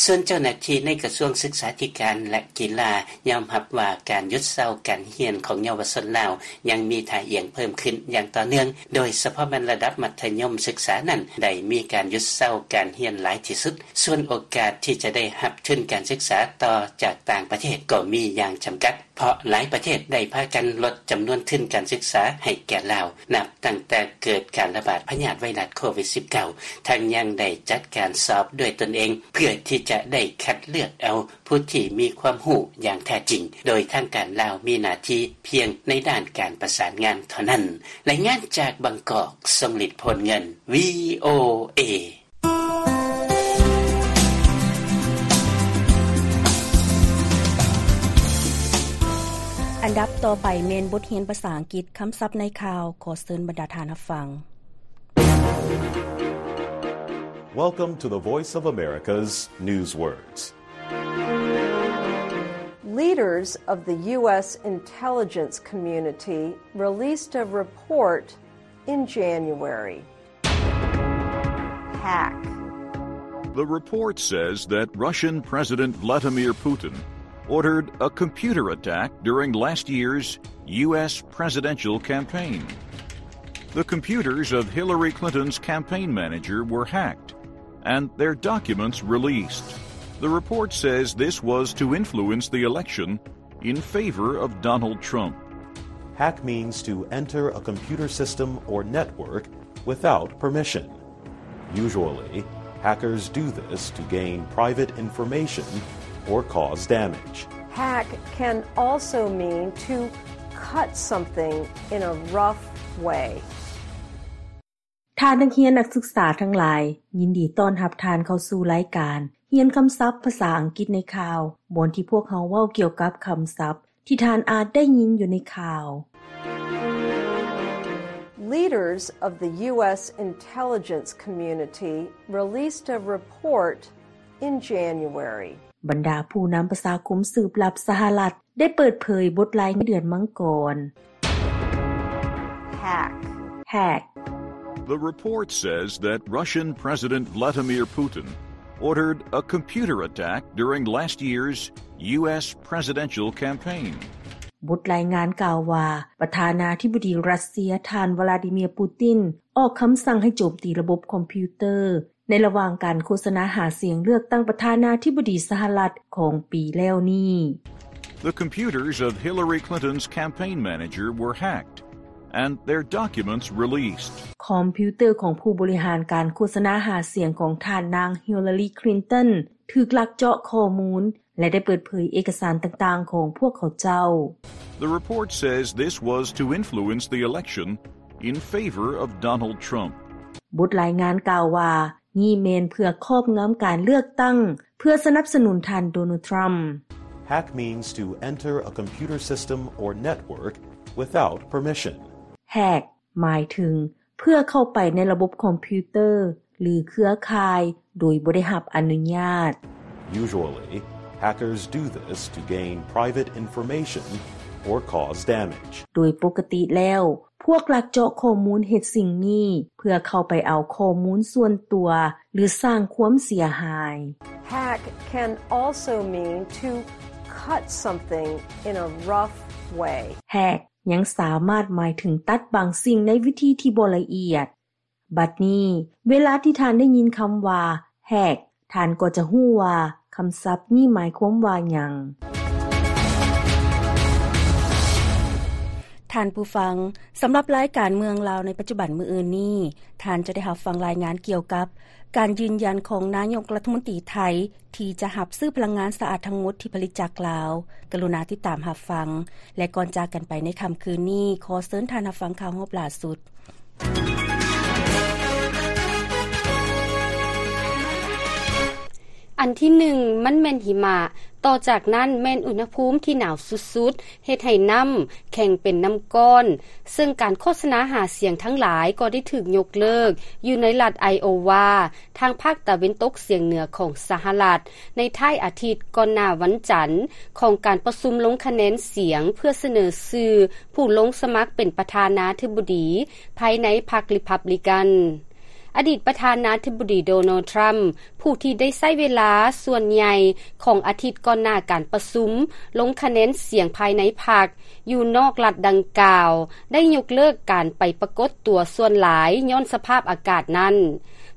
ສ່ວນເຈົ້າໜ້າທີ່ໃນກະຊວງສຶກສາທິການ ແລະ ກິລາ ຍອມຮັບວ່າການຢຸດເຊົາການຮຽນຂອງເຍົາວະຊົນລາວ ຍັງມີທ່າອ່ຽງເພີ່ມຂຶ້ນຢ່າງຕໍ່ເນື່ອງ, ໂດຍສະເພາະແມ່ນລະດັບມັດທະຍົມສຶກສານັ້ນໄດ້ມີການຢຸດເຊົາການຮຽນຫຼາຍທີ່ສຸດ. ສ່ວນໂອກາດທີ່ຈະໄດ້ຮັບທຶນການສຶກສາຕໍ່ຈາກຕ່າງປະເທດກໍມີຢ່າງຈຳກັດ, ເພາະຫຼາຍປະເທດໄດ້ພາກັນລົດຈຳນວນທຶນການສຶກສາໃຫ້ແກ່ລາວ ນັບຕັ້ງແຕ່ເກີດການລະບາດພະຍາດໄວຣັສໂຄວິດສິບເກົ້າ, ທັງຍັງໄດ້ຈັດການສອບດ້ວຍຕົນເອງ ເພື່ອທີ່ຈະໄດ້ຄັດເລືອກເອົາຜູ້ທີ່ມີຄວາມຮູ້ຢ່າງແທ້ຈິງ, ໂດຍທາງການລາວມີໜ້າທີ່ພຽງໃນດ້ານການປະສານງານເທົ່ານັ້ນ. ລາຍງານຈາກບາງກອກ, ຊົງລິດ ໂພນເງິນ, ວີໂອເອ. ອັນດັບຕໍ່ໄປແມ່ນບົດຮຽນພາສາອັງກິດ, ຄຳສັບໃນຂ່າວ. ຂໍເຊີນບັນດາທ່ານຮັບຟັງ. Welcome to the Voice of America's Newswords. Leaders of the U S intelligence community released a report in January. Hack. The report says that Russian President Vladimir Putin ordered a computer attack during last year's U S presidential campaign. The computers of Hillary Clinton's campaign manager were hacked and their documents released. The report says this was to influence the election in favor of Donald Trump. Hack means to enter a computer system or network without permission. Usually, hackers do this to gain private information or cause damage. Hack can also mean to cut something in a rough way. ທ່ານນັກຮຽນນັກສຶກສາທັງຫຼາຍ, ຍິນດີຕ້ອນຮັບທ່ານເຂົ້າສູ່ລາຍການຮຽນຄຳສັບພາສາອັງກິດໃນຂ່າວ, ບ່ອນທີ່ພວກເຮົາເວົ້າກ່ຽວກັບຄຳສັບທີ່ທ່ານອາດໄດ້ຍິນຢູ່ໃນຂ່າວ. Leaders of the U S intelligence community released a report in January. ບັນດາຜູ້ນຳປະຊາຄົມສືບລັບສະຫະລັດ ໄດ້ເປີດເຜີຍບົດລາຍງານເດືອນມັງກອນ. Hack. Hack. The report says that Russian President Vladimir Putin ordered a computer attack during last year's U S presidential campaign. ບົດລາຍງານກ່າວວ່າ ປະທານາທິບໍດີຣັດເຊຍ ທ່ານ ວລາດີເມຍ ປູຕິນ ອອກຄຳສັ່ງໃຫ້ໂຈມຕີລະບົບຄອມພິວເຕີ ໃນລະຫວ່າງການໂຄສະນາຫາສຽງເລືອກຕັ້ງປະທານາທິບໍດີສະຫະລັດຂອງປີແລ້ວນີ້. The computers of Hillary Clinton's campaign manager were hacked and their documents released. ຄອມພິວເຕີຂອງຜູ້ບໍລິຫານການໂຄສະນາຫາສຽງຂອງທ່ານນາງ Hillary Clinton ຖືກລັກເຈາະຂໍ້ມູນ ແລະ ໄດ້ເປີດເຜີຍເອກະສານຕ່າງໆຂອງພວກເຂົາເຈົ້າ. The report says this was to influence the election in favor of Donald Trump. ບົດລາຍງານກ່າວວ່າ ນີ້ແມ່ນເພື່ອຄອບງຳການເລືອກຕັ້ງ ເພື່ອສະໜັບສະໜູນທ່ານໂດນັລ ທຣຳ. Hack means to enter a computer system or network without permission. Hack ໝາຍເຖິງເພື່ອເຂົ້າໄປໃນລະບົບຄອມພິວເຕີ ຫຼື ເຄືອຂ່າຍ ໂດຍບໍ່ໄດ້ຮັບອະນຸຍາດ. Usually, hackers do this to gain private information or cause damage. ໂດຍປົກກະຕິແລ້ວ ພວກລັກເຈາະຂໍ້ມູນເຮັດສິ່ງນີ້ ເພື່ອເຂົ້າໄປເອົາຂໍ້ມູນສ່ວນຕົວ ຫຼື ສ້າງຄວາມເສຍຫາຍ. Hack can also mean to cut something in a rough way. Hack ຍັງສາມາດໝາຍເຖິງຕັດບາງສິ່ງໃນວິທີທີ່ບໍ່ລະອຽດ. ບັດນີ້ ເວລາທີ່ທ່ານໄດ້ຍິນຄຳວ່າ Hack ທ່ານກໍຈະຮູ້ວ່າຄຳສັບນີ້ໝາຍຄວາມວ່າຫຍັງ. ທ່ານຜູ້ຟັງ, ສຳລັບລາຍການເມືອງລາວໃນປັດຈຸບັນມື້ອື່ນນີ້, ທ່ານຈະໄດ້ຮັບຟັງລາຍງານກ່ຽວກັບການຢືນຢັນຂອງນາຍົກລັດຖະມົນຕີໄທ ທີ່ຈະຮັບຊື້ພະລັງງານສະອາດທັງໝົດທີ່ຜະລິດຈາກລາວ. ກະລຸນາຕິດຕາມຮັບຟັງ ແລະ ກ່ອນຈາກກັນໄປໃນຄ່ຳຄືນນີ້, ຂໍເຊີນທ່ານຮັບຟັງຂ່າວຮອບລ່າສຸດ. ອັນທີໜຶ່ງ ມັນແມ່ນຫິມະ, ຕໍ່ຈາກນັ້ນແມ່ນອຸນຫະພູມທີ່ໜາວສຸດໆ, ເຮັດໃຫ້ນ້ຳແຂງເປັນນ້ຳກ້ອນ, ເຊິ່ງການໂຄສະນາຫາສຽງທັງຫຼາຍກໍໄດ້ຖືກຍົກເລີກຢູ່ໃນລັດໄອໂອວາ, ທາງພາກຕາເວັນຕົກສຽງເໜືອຂອງສະຫະລັດ ໃນທ້າຍອາທິດກ່ອນໜ້າວັນຈັນ ຂອງການປະຊຸມລົງຄະແນນສຽງເພື່ອສະເໜີຊື່ຜູ້ລົງສະໝັກເປັນປະທານາທິບໍດີພາຍໃນພັກຣີພັບບລິກັນ. ອະດີດປະທານາທິບໍດີໂດນັລ ທຣຳ ຜູ້ທີ່ໄດ້ໃຊ້ເວລາສ່ວນໃຫຍ່ຂອງອາທິດກ່ອນໜ້າການປະຊຸມລົງຄະແນນສຽງພາຍໃນພັກ ຢູ່ນອກລັດດັ່ງກ່າວ ໄດ້ຍົກເລີກການໄປປາກົດຕົວສ່ວນຫຼາຍຍ້ອນສະພາບອາກາດນັ້ນ.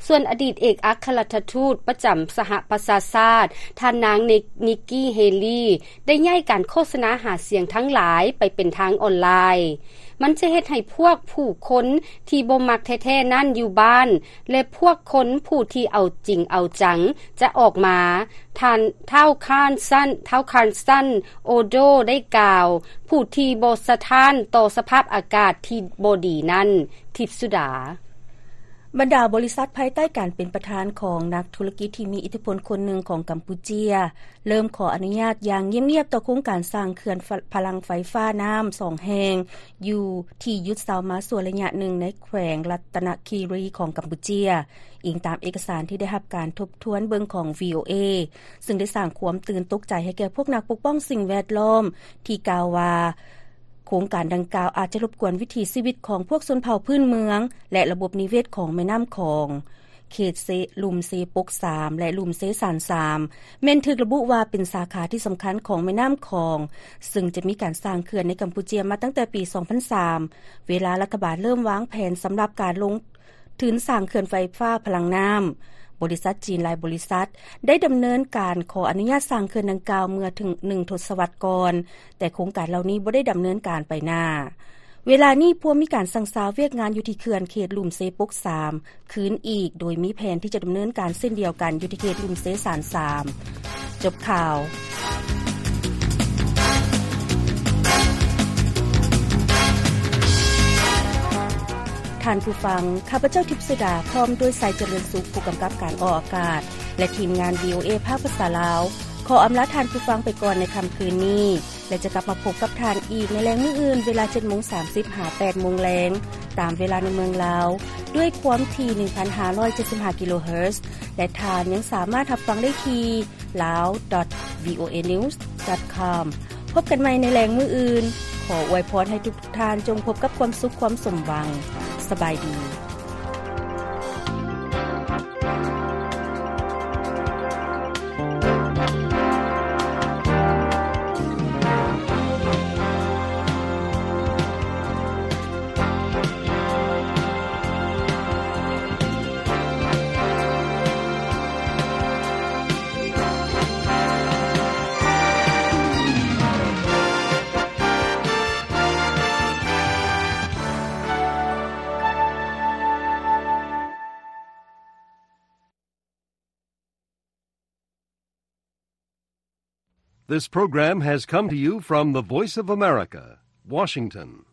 ສ່ວນອະດີດເອກອັກຄະລັດຖະທູດປະຈຳສະຫະປະຊາຊາດ ທ່ານນາງ ນິກ ນິກກີ່ ເຮລີ ໄດ້ຍ້າຍການໂຄສະນາຫາສຽງທັງຫຼາຍໄປເປັນທາງອອນລາຍ. ມັນຈະເຮັດໃຫ້ພວກຜູ້ຄົນທີ່ບໍ່ມັກແທ້ໆນັ້ນຢູ່ບ້ານ ແລະ ພວກຄົນຜູ້ທີ່ເອົາຈິງເອົາຈັງຈະອອກມາ. ທ່ານ ທ້າວ ຄານຊັນ ທ້າວ ຄານຊັນ ໂອໂດ ໄດ້ກ່າວ, ຜູ້ທີ່ບໍ່ສະທ້ານຕໍ່ສະພາບອາກາດທີ່ບໍ່ດີນັ້ນ. ທິບສຸດາ. ບັນດາບໍລິສັດພາຍໃຕ້ການເປັນປະທານຂອງນັກທຸລະກິດທີ່ມີອິດທິພົນຄົນໜຶ່ງຂອງກຳປູເຈຍ ເລີ່ມຂໍອະນຸຍາດຢ່າງງຽບໆຕໍ່ໂຄງການສ້າງເຂື່ອນພະ ພະລັງໄຟຟ້ານ້ຳສອງແຫ່ງ ຢູ່ທີ່ຢຸດເຊົາມາຊົ່ວໄລຍະໜຶ່ງໃນແຂວງລັດຕະນະຄີຣີຂອງກຳປູເຈຍ, ອີງຕາມເອກະສານທີ່ໄດ້ຮັບການທົບທວນເບິ່ງຂອງ ວີໂອເອ ເຊິ່ງໄດ້ສ້າງຄວາມຕື່ນຕົກໃຈໃຫ້ແກ່ພວກນັກປົກປ້ອງສິ່ງແວດລ້ອມ ທີ່ກ່າວວ່າ ໂຄງການດັ່ງກ່າວອາດຈະລົບກວນວິຖີຊີວິດຂອງພວກຊົນເຜົ່າພື້ນເມືອງ ແລະ ລະບົບນິເວດຂອງແມ່ນ້ຳຂອງ. ເຂດເຊ ລຸ່ມເຊປົກສາມ ແລະ ລຸ່ມເຊຊານສາມ ແມ່ນຖືກລະບຸວ່າເປັນສາຂາທີ່ສຳຄັນຂອງແມ່ນ້ຳຂອງ, ເຊິ່ງຈະມີການສ້າງເຂື່ອນໃນກຳປູເຈຍມາຕັ້ງແຕ່ປີສອງພັນສາມ ເວລາລັດຖະບານເລີ່ມວາງແຜນສຳລັບການລົງທຶນສ້າງເຂື່ອນໄຟຟ້າພະລັງນ້ຳ. ບໍລິສັດຈີນຫຼາຍບໍລິສັດໄດ້ດຳເນີນການຂໍອະນຸຍາດສ້າງເຂື່ອນດັ່ງກ່າວເມື່ອເຖິງໜຶ່ງທົດສະວັດກ່ອນ, ແຕ່ໂຄງການເຫຼົ່ານີ້ບໍ່ໄດ້ດຳເນີນການໄປໜ້າ. ເວລານີ້ພວມມີການສັ່ງຊາວຽກງານຢູ່ທີ່ເຂື່ອນເຂດລຸ່ມເຊປົກສາມຄືນອີກ, ໂດຍມີແຜນທີ່ຈະດຳເນີນການເຊັ່ນດຽວກັນຢູ່ທີ່ເຂດລຸ່ມເຊຊານສາມ. ຈົບຂ່າວ. ທ່ານຜູ້ຟັງ, ຂ້າພະເຈົ້າ ທິບສຸດາ ພ້ອມດ້ວຍ ໄຊຈະເລີນສຸກ ຜູ້ກຳກັບການອອກອາກາດ ແລະ ທີມງານ ວີໂອເອ ພາກພາສາລາວ ຂໍອຳລາທ່ານຜູ້ຟັງໄປກ່ອນໃນຄ່ຳຄືນນີ້ ແລະ ຈະກັບມາພົບກັບທ່ານອີກໃນແລງມື້ອື່ນ ເວລາເຈັດໂມງສາມສິບ ຫາ ແປດໂມງແລງ ຕາມເວລາໃນເມືອງລາວ ດ້ວຍຄວາມຖີ່ ໜຶ່ງພັນຫ້າຮ້ອຍເຈັດສິບຫ້າ ກິໂລເຮີດ ແລະ ທ່ານຍັງສາມາດຮັບຟັງໄດ້ທີ່ lao dot voanews dot com. ພົບກັນໃໝ່ໃນແລງມື້ອື່ນ. ຂໍອວຍພອນໃຫ້ທຸກໆທ່ານຈົ່ງພົບກັບຄວາມສຸກຄວາມສົມຫວັງ. ສະບາຍດີ. This program has come to you from the Voice of America, Washington.